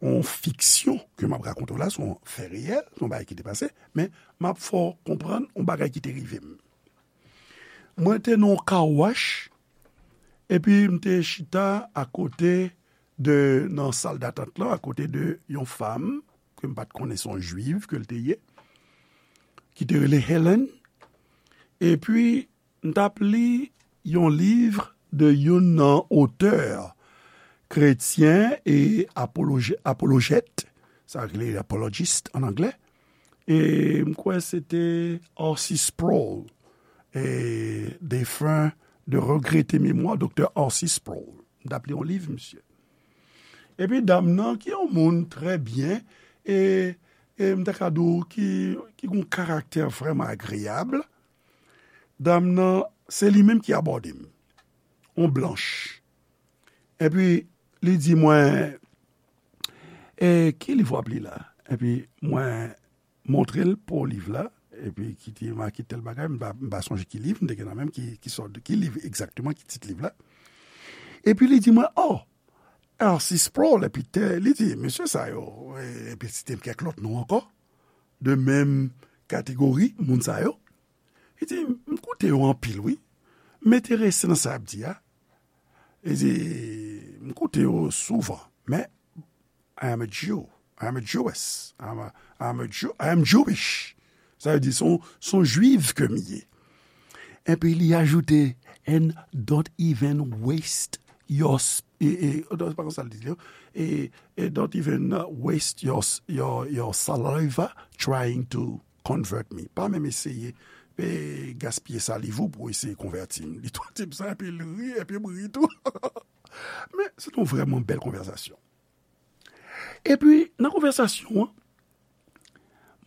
yon fiksyon ke m ap rakonte w la, se yon fè reyèl, se yon bagay ki te pase, men m ap fè w konprann yon bagay ki te rive m. Mwen te nan yon car wash, epi m te chita akote de, nan sal datant lan, akote de yon fanm ke m pa t konnen se yon jwiv ke l te ye, ki te rele Helen. Epi, m t ap li yon liv de youn nan otè kretyen e apoloje-, apolojèt, sa rele apologist an anglè. E m kwè se te R C Sproul, e defen, de regrete memwa, Doktè R C Sproul. M t ap li yon liv, misye. Epi dam nan, ki yon moun trè byen, e, e m ta ka di w ki, ki gon karaktè vrèman agreyab, dam nan, se li menm ki abòde m. Yon blanch. Epi, li di mwen, e, ki liv w ap li la? Epi, mwen montre l po liv la, epi ki te make tèl bagay, m pa, m pa sonje ki liv, m te gen nan menm ki, ki sòt, ki liv egzakteman, ki tit liv la. Epi, li di mwen, oh, R C Sproul, epi te, li di, mesye sa yo, e, epi site m kèk lòt non ankò, de menm kategori, moun sa yo. Li di, m koute yo anpil, wi. M enterese nan sa y ap di a. Li di, m koute yo souvan, men I am a Jew. I am a Jewess. I am a, I am a Jew, I am Jewish. Sa vle di, se yon, se yon jwiv ke m ye. Epi li ajoute, and don't even waste your, s-, e, e, non, se pa konsa l di, e, e, don't even, uh, waste your, s-, your, your saliva trying to convert me. Pa menm eseye, e, gaspiye saliv ou pou eseye konvèti m. Li tou di m sa, epi l ri, epi m ri tou. Men, se te yon vrèman bèl konvèsasyon. Epi, nan konvèsasyon an,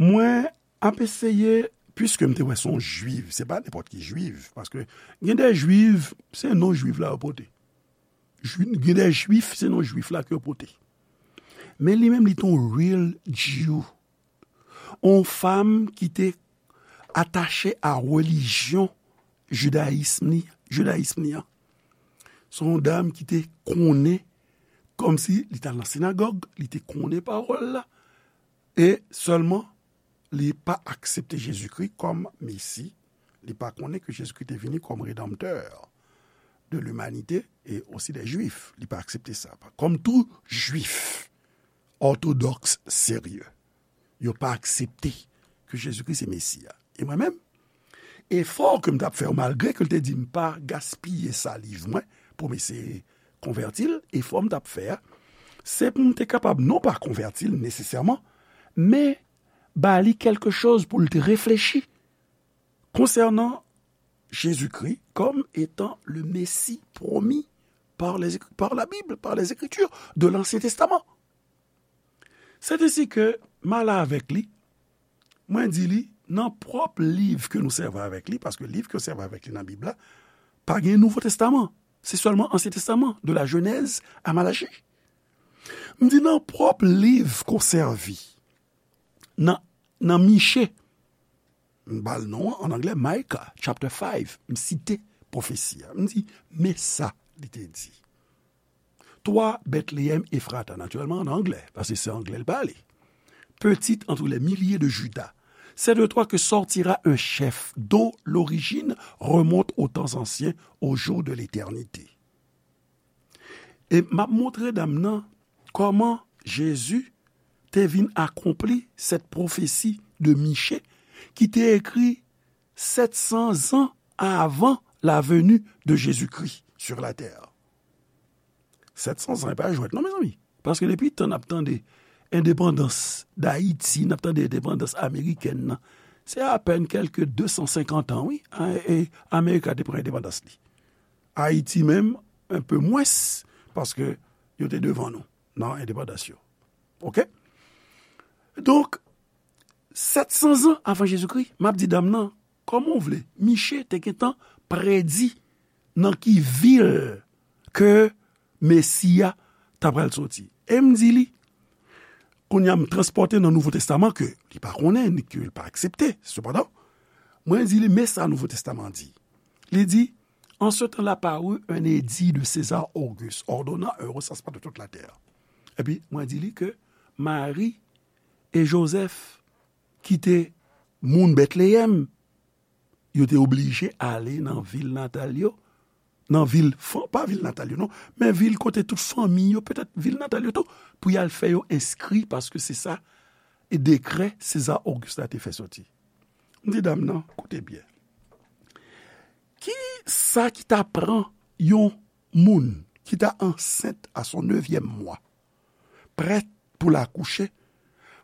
mwen ap eseye, piske m te wè se yon jwiv, se pa nenpòt ki jwiv, paske gen de jwiv, se non jwiv la yo pote. Jwi-, gen de jwif, se non jwif la ke yo pote. Men li menm, li te yon real Jew. Yon fanm ki te atache a relijyon jidayism li, jidayism li an. Se yon dam ki te konnen, kòmsi li t al nan sinagòg, li te konnen pawòl la, e sèlman li pa aksepte Jezikri kòm Mesi, li pa konnen ke Jezikri te vini kòm redanmtè de limanite e osi dè Jwif. Li pa aksepte sa. Kòm tou Jwif òtodòks serye, yo pa aksepte ke Jezikri se Mesi a. E mwen menm, efò ke m t ap fè yo, malgre ke l te di m pa gaspiye saliv mwen pou m eseye konvèti l, efò m t ap fè a, se pou m te kapab non pa konvèti l nesesèman, men ba li kèlke choz pou l te reflechi konsènan Jezikri comme étant le Messie promis par les, par la Bible, par les Écritures de l'Ancien Testament. C'est ainsi que m ale avèk li, mwen di li, nan pwòp liv ke nou sèvi avèk li, paske liv ke yo sèvi avèk li nan Bib la, pa gen Nouvo Testaman. Se sèlman Ansyen Testaman, de la Genèse à Malachie. M di nan pwòp liv ke w sèvi, nan, nan Miche, m ba l non an, an anglè, Micah, chapter five, m site pwofesi a. M di, men sa li te di. Toi, Bethléem Ephrata, naturellement en anglais, parce que c'est anglais le parler. Petit entre les milliers de Juda, c'est de toi que sortira un chef dont l'origine remonte aux temps anciens, aux jours de l'éternité. E m ap montre dam nan kòman Jezi te vin akonpli cette prophétie de Miche ki te ekri sèt san zan avan la venue de Jésus-Christ sur la terre. Sèt san zan, e pa jwèt non, mezanmi. Paske depi tan n ap tande endepandans Dayiti, n ap tande endepandans amerikèn nan, se apèn kèlke de san senkant an, wi, a, e, Amerika te pran endepandans li. Ayiti menm, un peu mwens, paske yo te devan nou nan endepandans yo. Oke? Donk, sèt san zan avan Jezikri, m ap di dam nan, kòman w vle, Miche te gentan predi nan ki vil ke Mesi a ta pral soti. E m di li, kounye a m transpòte nan Nouvo Testaman ke li pa konnen, ni ke li pa aksepte. Sepandan, mwen di li, men sa Nouvo Testaman di. Li di, en ce temps-là parut un édit de César Auguste, ordonnant un recensement de toute la terre. Epi, mwen di li ke Mari e Jozèf, ki te moun Betleyèm, yo te oblije ale nan vil natal yo, nan vil, fan-, pa vil natal yo, non, men vil kote tout fanmi yo, petèt vil natal yo tou, pou y al fè yo enskri, paske se sa, e dekrè Seza Ogis la te fè soti. M di dam nan, koute byen. Ki sa ki ta pran yon moun ki ta ansent à son neuvième mois, prèt pou l akouche,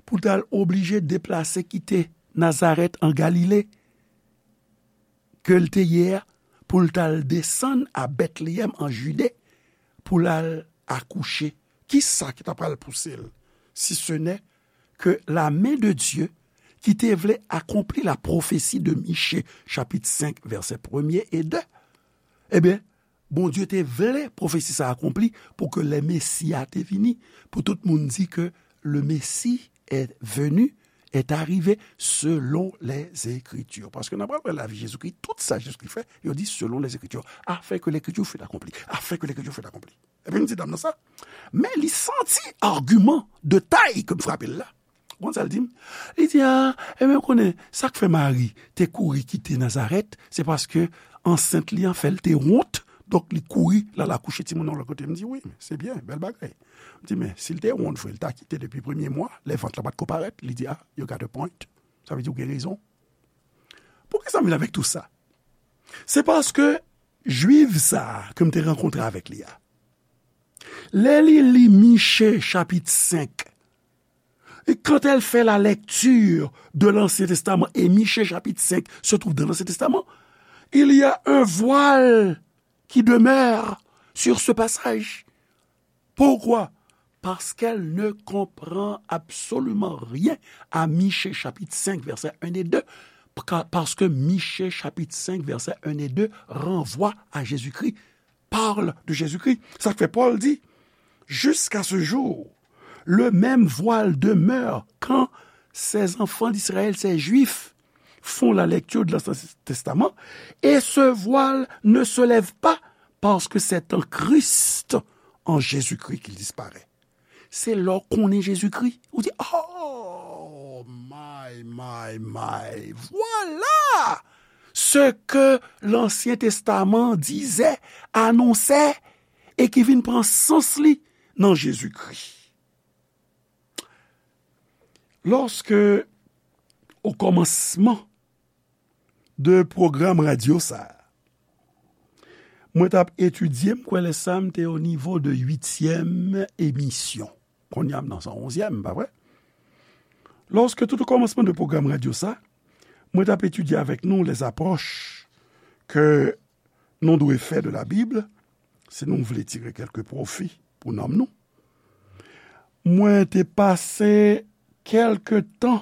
pou l t al oblije deplase kite Nazarèt an Galile, ke l te ye a, pou l t al desann a Betleyèm an Jide, pou l al akouche? Ki sa ki ta pral pouse l, si ce n'est que la main de Dieu ki te vle akonpli la pwofesi de Miche, chapit senk, vèsè premye e de? Ebyen, Bondye te vle pwofesi sa akonpli pou ke lè Mesi a te vini, pou tout moun di ke le Messie est venu, est arrivé selon les Écritures. Paske nan pral wè lavi Jezikri, tout sa Jezikri fè, yo di selon les Écritures, afin que l'Écriture fût accomplie, afin que l'Écriture fût accomplie. Epi m di dam nan sa, men li santi agiman de tay ke m frape l la. Ou konn sa l di m? Li di, a, ebyen, ou konnen, sa k fè Mari te kouri kite Nazarèt, se paske ansent li an fè l te wont, donk li kouri l al akouche timoun nan lòt kote. M di, wi, se byen, bèl bagay. M di, men si l te wont vre, l ta kite depi premye mwa, lè vant lan pa t ko parèt, li di, a, you got a point. Sa vle di ou gen rezon. Poukisa m vin avèk tou sa? Se paske Jwif sa a ke m te rankontre avèk li a, lè li li Miche chapit senk, et quand elle fait la lecture de l'Ancien Testament, et Michée chapitre cinq se trouve dans l'Ancien Testament, il y a un voile qui demeure sur ce passage. Pourquoi? Parce qu'elle ne comprend absolument rien à Michée chapitre cinq, versets un et deux, pa-, parce que Michée chapitre cinq, versets un et deux renvoie à Jésus-Christ, parle de Jésus-Christ. Sa k fè Pòl di, jusqu'à ce jour, le même voile demeure quand ces enfants d'Israël, ces Juifs, font la lecture de l'Ancien Testament, et ce voile ne se lève pas, parce que c'est en Christ, en Jésus-Christ, qu'il disparaît. Se lè w konnen Jezikri, ou di, oh, my, my, my, voilà ce que l'Ancien Testament disait, annonçait, et qui vient prendre sens li nan Jezikri. Lorsque o kòmansman de pwogram radyo sa a, mwen t ap etidye, m kwè lè sa a m te o nivo de uityèm emisyon. Kounye a m nan san onzyèm, pa vre? Lòske tout o kòmansman de pwogram radyo sa, mwen t ap etidye avèk nou les approches que nou dwe fè de la Bible, si nou vle tire kèlke pwofi pou nanm nou. Mwen te pase kèlke tan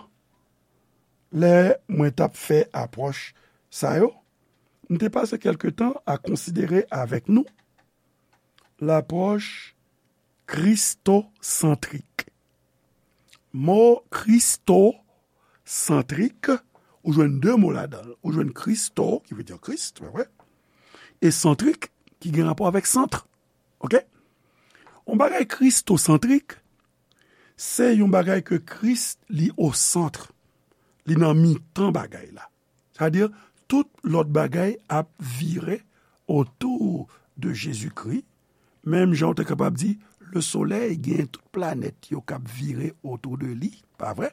lè mwen t ap fè apwòch sa yo, m te pase kèlke tan a konsidere avèk nou lapwòch kristosantrik. Mo kristosantrik, ou jwenn de mo ladan l. Ou jwenn Christo, ki vle di Kris, pa vre? E santrik, ki gen rapò avèk sant. Oke? Yon bagay kristosantrik, se yon bagay ke Kris li o sant. Li nan mitan bagay la. Sa vle di, tout lòt bagay ap vire otou de Jezikri. Menm jan w te kapab di, le solèy gen tout planèt yo k ap vire otou de li, pa vre?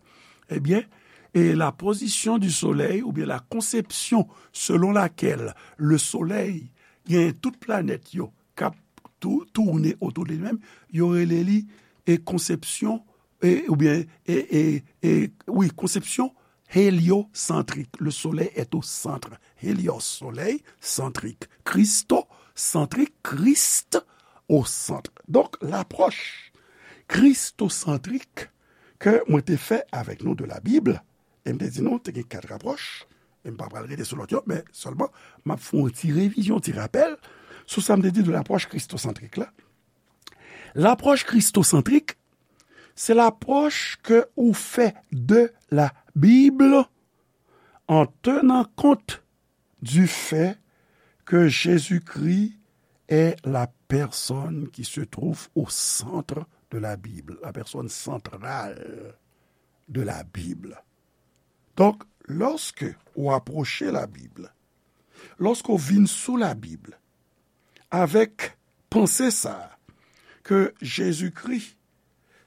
Ebyen, e la position du soleil, oubyen la conception selon laquelle le soleil gen tout planèt yo k ap tou-, tourne otou de li menm, yo rele li e konsepsyon, e, oubyen, e, e, e, wi, konsepsyon héliocentrik. Le soleil est au centre. Hélios, soleil, centrique. Christocentrik, Christ au centre. Donk, lapwòch kristosantrik ke mwen te fè avèk nou de la Bible, e m te di nou, te gen kat apwòch, e m pa pral rete sou lòt yo, men sèlman, m ap fè yon ti revizyon, ti rapèl, sou sa m te di de lapwòch kristosantrik la. Lapwòch kristosantrik, se lapwòch ke ou fè de la Bible en tenant compte du fait que Jésus-Christ est la personne qui se trouve au centre de la Bible, la personne centrale de la Bible. Donk, lòske ou apwoche la Bib, lòske ou vin sou la Bib, avèk panse sa a, ke Jezikri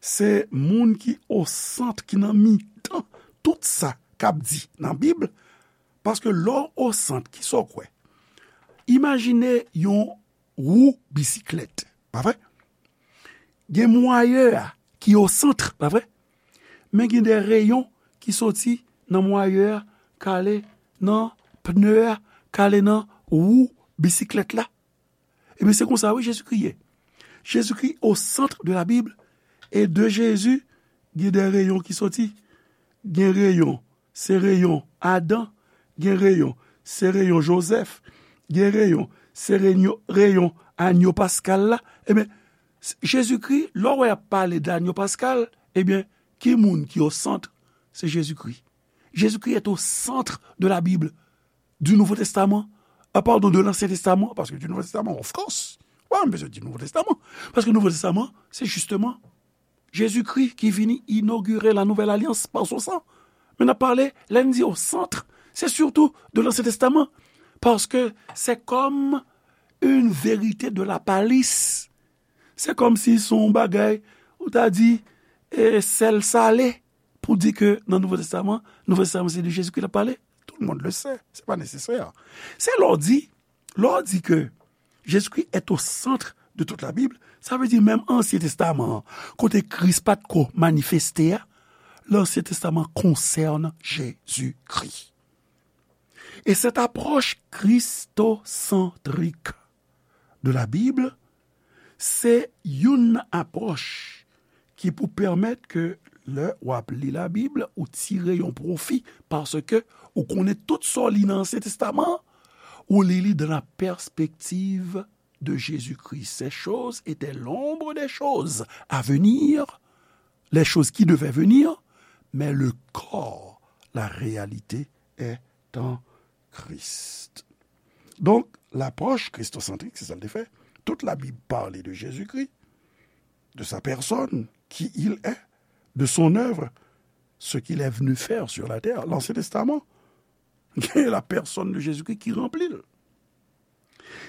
se moun ki o sant, ki nan mitan tout sa k ap di nan Bib, paske lè w o sant, kisa w kwè? Imajine yon wou bisiklèt, pa vre? Gen mwayè a ki o sant, pa vre? Men gen de reyon ki soti nan mwayè a, k ale nan pne a, k ale nan wou bisiklèt la. Ebyen, se konsa, wi, Jezikri ye. Jezikri o sant de la Bib, e de Jezi, gen de reyon ki soti. Gen reyon, se reyon Adan, gen reyon, se reyon Jozèf, gen reyon, se reyon, reyon anyo paskal la. Ebyen, s-, Jezikri, lè w wè y ap pale de anyo paskal, ebyen, ki moun ki o sant? Se Jezikri. Jésus-Christ est au centre de la Bible, du Nouveau Testament, ah, pardon, de l'Ancien Testament, paske du Nouveau Testament, of course. Why m bezwen di Nouvo Testaman? Paske Nouvo Testaman, se jisteman Jezikri ki vini inogire la nouvelle alliance par son sang. Men n ap pale, lè n di au centre, se surtout de l'Ancien Testament, paske se comme une vérité de la palisse. Se kòmsi se yon bagay, ou ta di, e, sèl sale, pou di ke nan Nouvo Testaman, Nouvo Testaman se de Jezikri l ap pale. Tout le monde le sait, se pa nesesè. Se lè w di, lè w di ke Jésus-Christ est au centre de toute la Bible, sa vle di menm Ansyen Testaman an, kote Kris pa t ko manifeste a, l'Ancien Testament concerne Jésus-Christ. Et cette approche christocentrique de la Bible, se youn nan apwòch ki pou pèmèt ke lè w ap li Labib, ou tire yon pwofi, paske ou konnen tout sa w li nan Ansyen Testaman an, ou li li dans la perspective de Jésus-Christ. Ces choses étaient l'ombre des choses à venir, les choses qui devaient venir, mais le corps, la réalité est en Christ. Donk, lapwòch kristosantrik, se sa l te fè. Tout Labib pale de Jezikri, de sa personne, qui il est, de son œuvre, ce qu'il est venu faire sur la terre. L'Ancien Testament, la personne de Jésus-Christ ki ranpli l.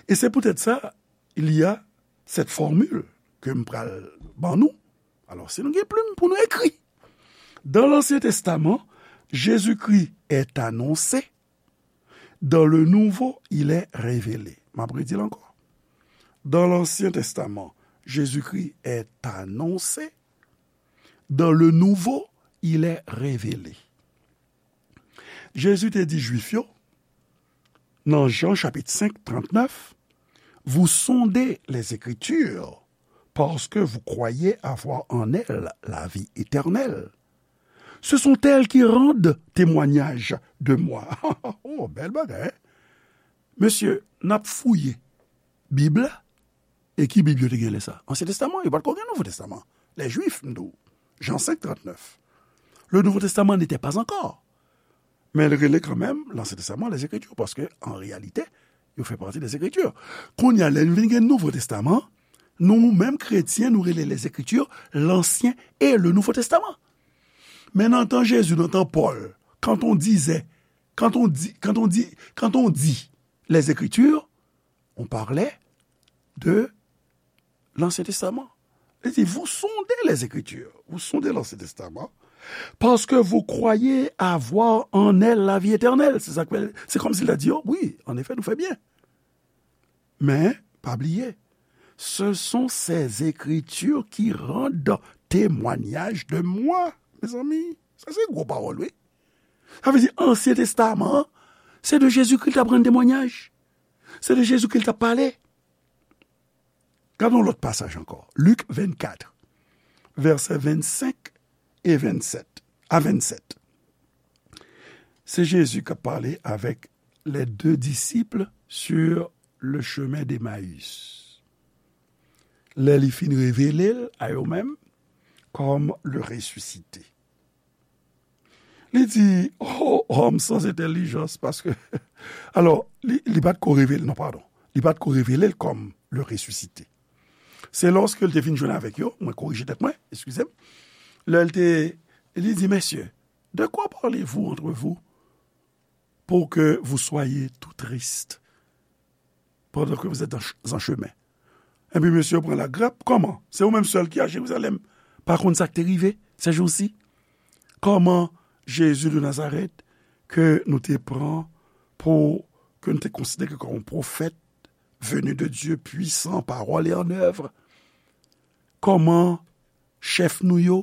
E se poutèt sa, il y a cette formule ke m pral ban nou. Alò, si nou gen plim pou nou ekri. Dans l'Ancien Testament, Jésus-Christ est annoncé, dans le Nouveau, il est révélé. M ap redi l ankò. Dans l'Ancien Testament, Jésus-Christ est annoncé, dans le Nouveau, il est révélé. Jezi te di Jwif yo, nan Jan chapit senk, trannèf, vous sondez les Écritures, parce que vous croyez avoir en elles la vie éternelle. Ce sont elles qui rendent témoignage de moi. Oh, bèl bagay, hein? Mesye, n ap fouye Bib la. E ki Bib yo te gen lè sa? Ansyen Testaman, yo pa t ko gen Nouvo Testaman. Les Juifs, m di w. Jan senk, trannèf. Le Nouveau Testament n'était pas encore. Men l rele kanmenm Lansyen Testaman, les Écritures, paske, an reyalite, yo fè pati des Écritures. Kounye a, lè n vin gen Nouvo Testaman, nou menm kretyen, nou rele les Écritures, l'Ancien et le Nouveau Testament. Men nan tan Jezi, nan tan Pòl, quand on disait, quand on dit, quand on dit, quand on dit les Écritures, on parlait de l'Ancien Testament. Li di, vous sondez les Écritures, vous sondez l'Ancien Testament, parce que vous croyez avoir en elles la vie éternelle. Se sa k fè, se kòmsi l ta di yo, wi, an efè, nou fè byen. Men, pa bliye, ce sont ces Écritures qui rendent témoignage de moi. Mezanmi, sa se gwo pawòl, wi. Sa vle di, Ansyen Testaman an, se de Jezikri l t ap rann temwanyaj. Se de Jezikri l t ap pale. Gade yon lòt pasaj ankò. Lik vennkat, vèsè vennsenk e vennsenk a vennsèt. Se Jezi k ap pale avèk les deux disciples sur le chemin d'Emmaüs. Lè li fin revele l a yo menm kòm le ressuscité. Li di, oh, homme sans intelligence, paske, alò, li, li pa t ko revele, non, padon. Li pa t ko revele l kòm le ressuscité. Se lòske l te fin jwenn avèk yo, mwen korije tèt mwen, eskize m. Lè l te, li di, messieurs, de quoi parlez-vous entre vous pour que vous soyez tout tristes pendant que vous êtes en ch-, en chemin? Epi mesye yo pran lagrèp. Kòman? Se ou menm sèl ki a Jerizalèm pa konn sa k te rive ces jours-ci? Kòman Jezi de Nazarèt, ke nou te pran pou, ke nou te konsidere kòm yon pwofèt venu de Dieu, puissant en parole et en œuvre, kòman chèf nou yo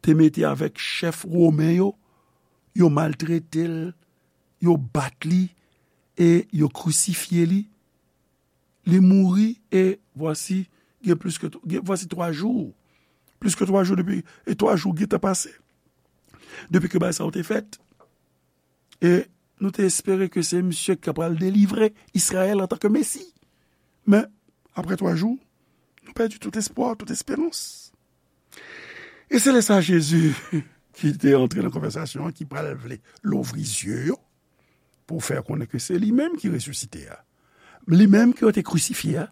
te mete avèk chèf women yo, yo maltrete l, yo bat li e yo krisifye li. Li mouri e vwasi, gen plis ke, gen, vwasi twa jou. Plis ke twa jou depi, e twa jou gentan pase. Depi ke bagay sa yo te fèt. E nou te espere ke se misye ki ta pral delivre Izrayèl antanke Mesi. Men, apre twa jou, nou pèdi tout espwa, tout esperans. E se lè sa Jezi, ki te antre nan konvèsasyon an, ki pral vle louvri zye yo, pou fè konnen ke se li menm ki resisite a. Li menm ke yo te krisifye a.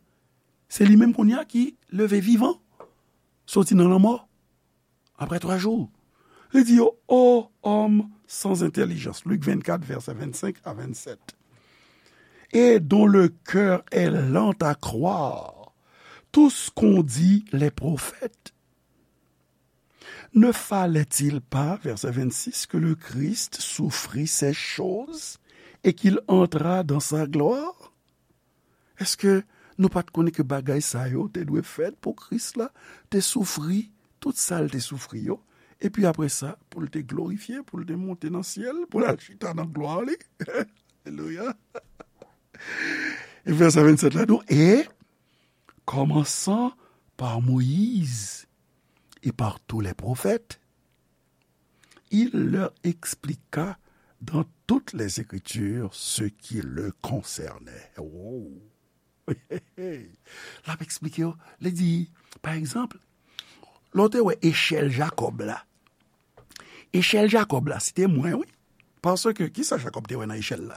Se li menm kounye a ki leve vivan, soti nan lanmò, apre twa jou. Li di yo, ô homme sans intelligence, Lik vennkat, vèsè vennsenk a vennsèt, et dont le cœur est lent à croire tout ce qu'ont dit les prophètes. Ne fallait-il pas, verset vingt-six, que le Christ souffrit ces choses et qu'il entrât dans sa gloire? Èske nou pa t konnen ke bagay sa yo te dwe fèt pou Kris la te soufri tout sa l te soufri yo, epi apre sa, pou l te glorifye, pou l te monte nan syèl, pou l al chita nan glwa li? Alelouya! E vèsè vennsèt la, nou, et commençant par Moïse et par tous les prophètes, il leur expliqua dans toutes les Écritures ce qui le concernait. Oh. L ap eksplike yo. Li di, pa egzanp, lè w te wè echèl Jakòb la. Echèl Jakòb la, se te mwen, wi. Paske, kisa Jakòb te wè nan echèl la?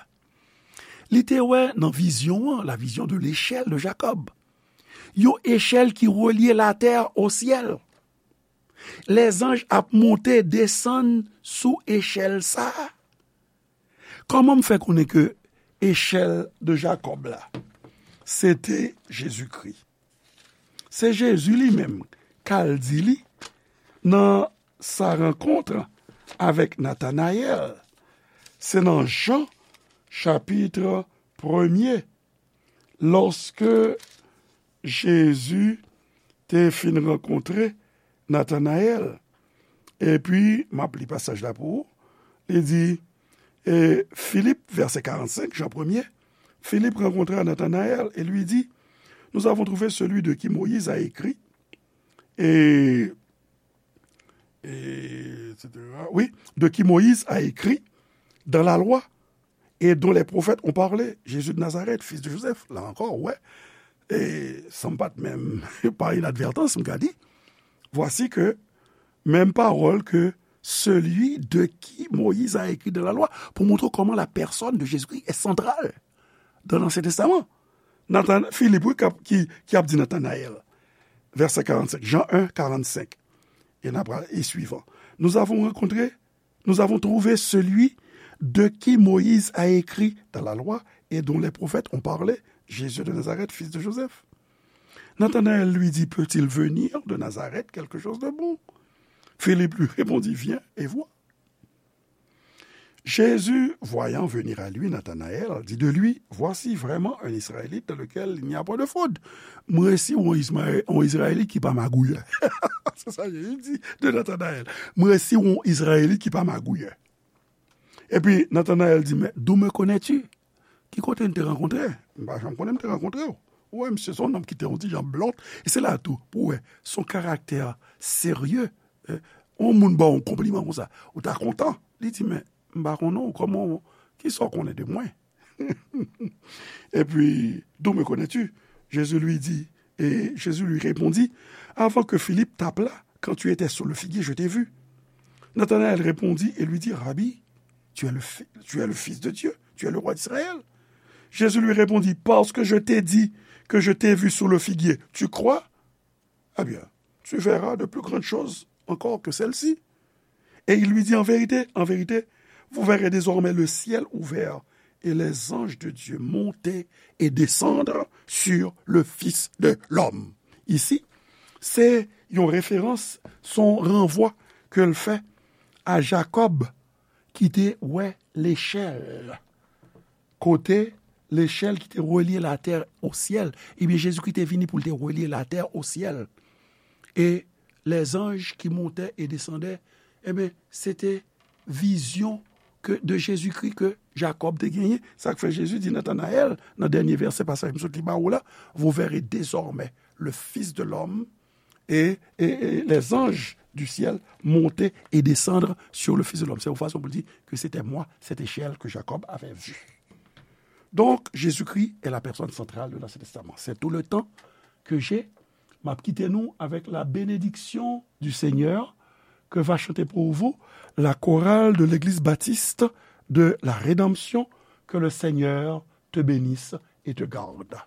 Li te wè nan vizyon an, la vision de l'échelle de Jacob. Yon echèl ki relye latè o syèl. Lèzanj ap monte, desann sou echèl sa a. Kòman m fè konnen ke echèl de Jakòb la, se te Jezikri? Se Jezi li menm k al di li nan sa rankont avèk Natanayèl. Se nan Jan, chapit premye, lòske Jezi te fin rankontre Natanayèl. Epi, m ap li pasaj la pou ou. Li di, e, Filip, vèsè karannsenk, Jan premye, Philippe rencontra Nathanaël et lui dit, nous avons trouvé celui de qui Moïse a écrit, et, et, et cetera. Oui, de qui Moïse a écrit dans la loi et dont les prophètes ont parlé, Jésus de Nazareth, fils de Joseph. La encore, ouais. Et sa pa t menm pa inadvertans, m ka di. Voici que même parole que celui de qui Moïse a écrit dans la loi, pou montre kòman la personne de Jésus-Christ est centrale dans l'Ancien Testament. Nathan, Philippe, wi, k ap, ki, ki ap di Nathanaël, verset quarante-cinq, Jean un, quarante-cinq, et, n ap, et suivant. Nous avons rencontré, nous avons trouvé celui de qui Moïse a écrit dans la loi et dont les prophètes ont parlé, Jésus de Nazareth, fils de Joseph. Nathanaël lui dit, peut-il venir de Nazareth quelque chose de bon ? Philippe lui répondit, viens et vois. Jésus, voyant venir à lui Nathanaël, dit de lui, voici vraiment un Israélite dans lequel il n'y a point de faute. Mwen resi yon Izrayelit ki pa magouyè. Se sa Jezi di de Nathanaël. Mwen resi yon Izrayelit ki pa magouyè. Epi Nathanaël di, mais d'où me connais-tu ? Ki kote n te rankontre? M pa janm konnen m te rankontre w. Ou wè, misye se yon nonm ki te yon ti jan blond. E se la tou, pou wè, se yon karaktè serye. Yon moun ba w yon konpliman konsa, ou ta kontan. Li di, men, m pa konnen w, kòman w, kisa w konnen de mwen? Et puis, d'où me connais-tu ? Jésus lui dit, et Jésus lui répondit, avant que Philippe t'appelât, quand tu étais sous le figuier, je t'ai vu. Nathanaël répondit et lui dit, Rabbi, tu es le, tu es le Fils de Dieu, tu es le roi d'Israël. Jésus lui répondit, parce que je t'ai dit que je t'ai vu sous le figuier, tu crois ? Eh bien, tu verras de plus grandes choses encore que celles-ci. Et il lui dit, en vérité, en vérité, vous verrez désormais le ciel ouvert et les anges de Dieu monter et descendre sur le Fils de l'homme. Ici, c'est une référence, son renvoi que le fait à Jacob ki te wè lechèl. Kote lechèl ki te relye latè o syèl. Ebyen, Jezikri te vini pou l te relye latè o syèl. E lèzanj ki montè e desandè, ebyen, se te vizyon ke, de Jezikri ke Jakòb te genyen. Sa k fè Jezi di Natanayèl, nan dènye vèsè pasaj m sot li ba ou la, vous verrez désormais le Fils de l'homme et, et, et les anges du ciel monter et descendre sur le Fils de l'homme. C'est une façon pour dire que c'était moi, cette échelle que Jacob avait vue. Donc, Jésus-Christ est la personne centrale de l'Ancien Testament. C'est tout le temps que j'ai. M ap kite nou avec la bénédiction du Seigneur que va chanter pour vous la chorale de l'Église baptiste de la Rédemption. Que le Seigneur te bénisse et te garde.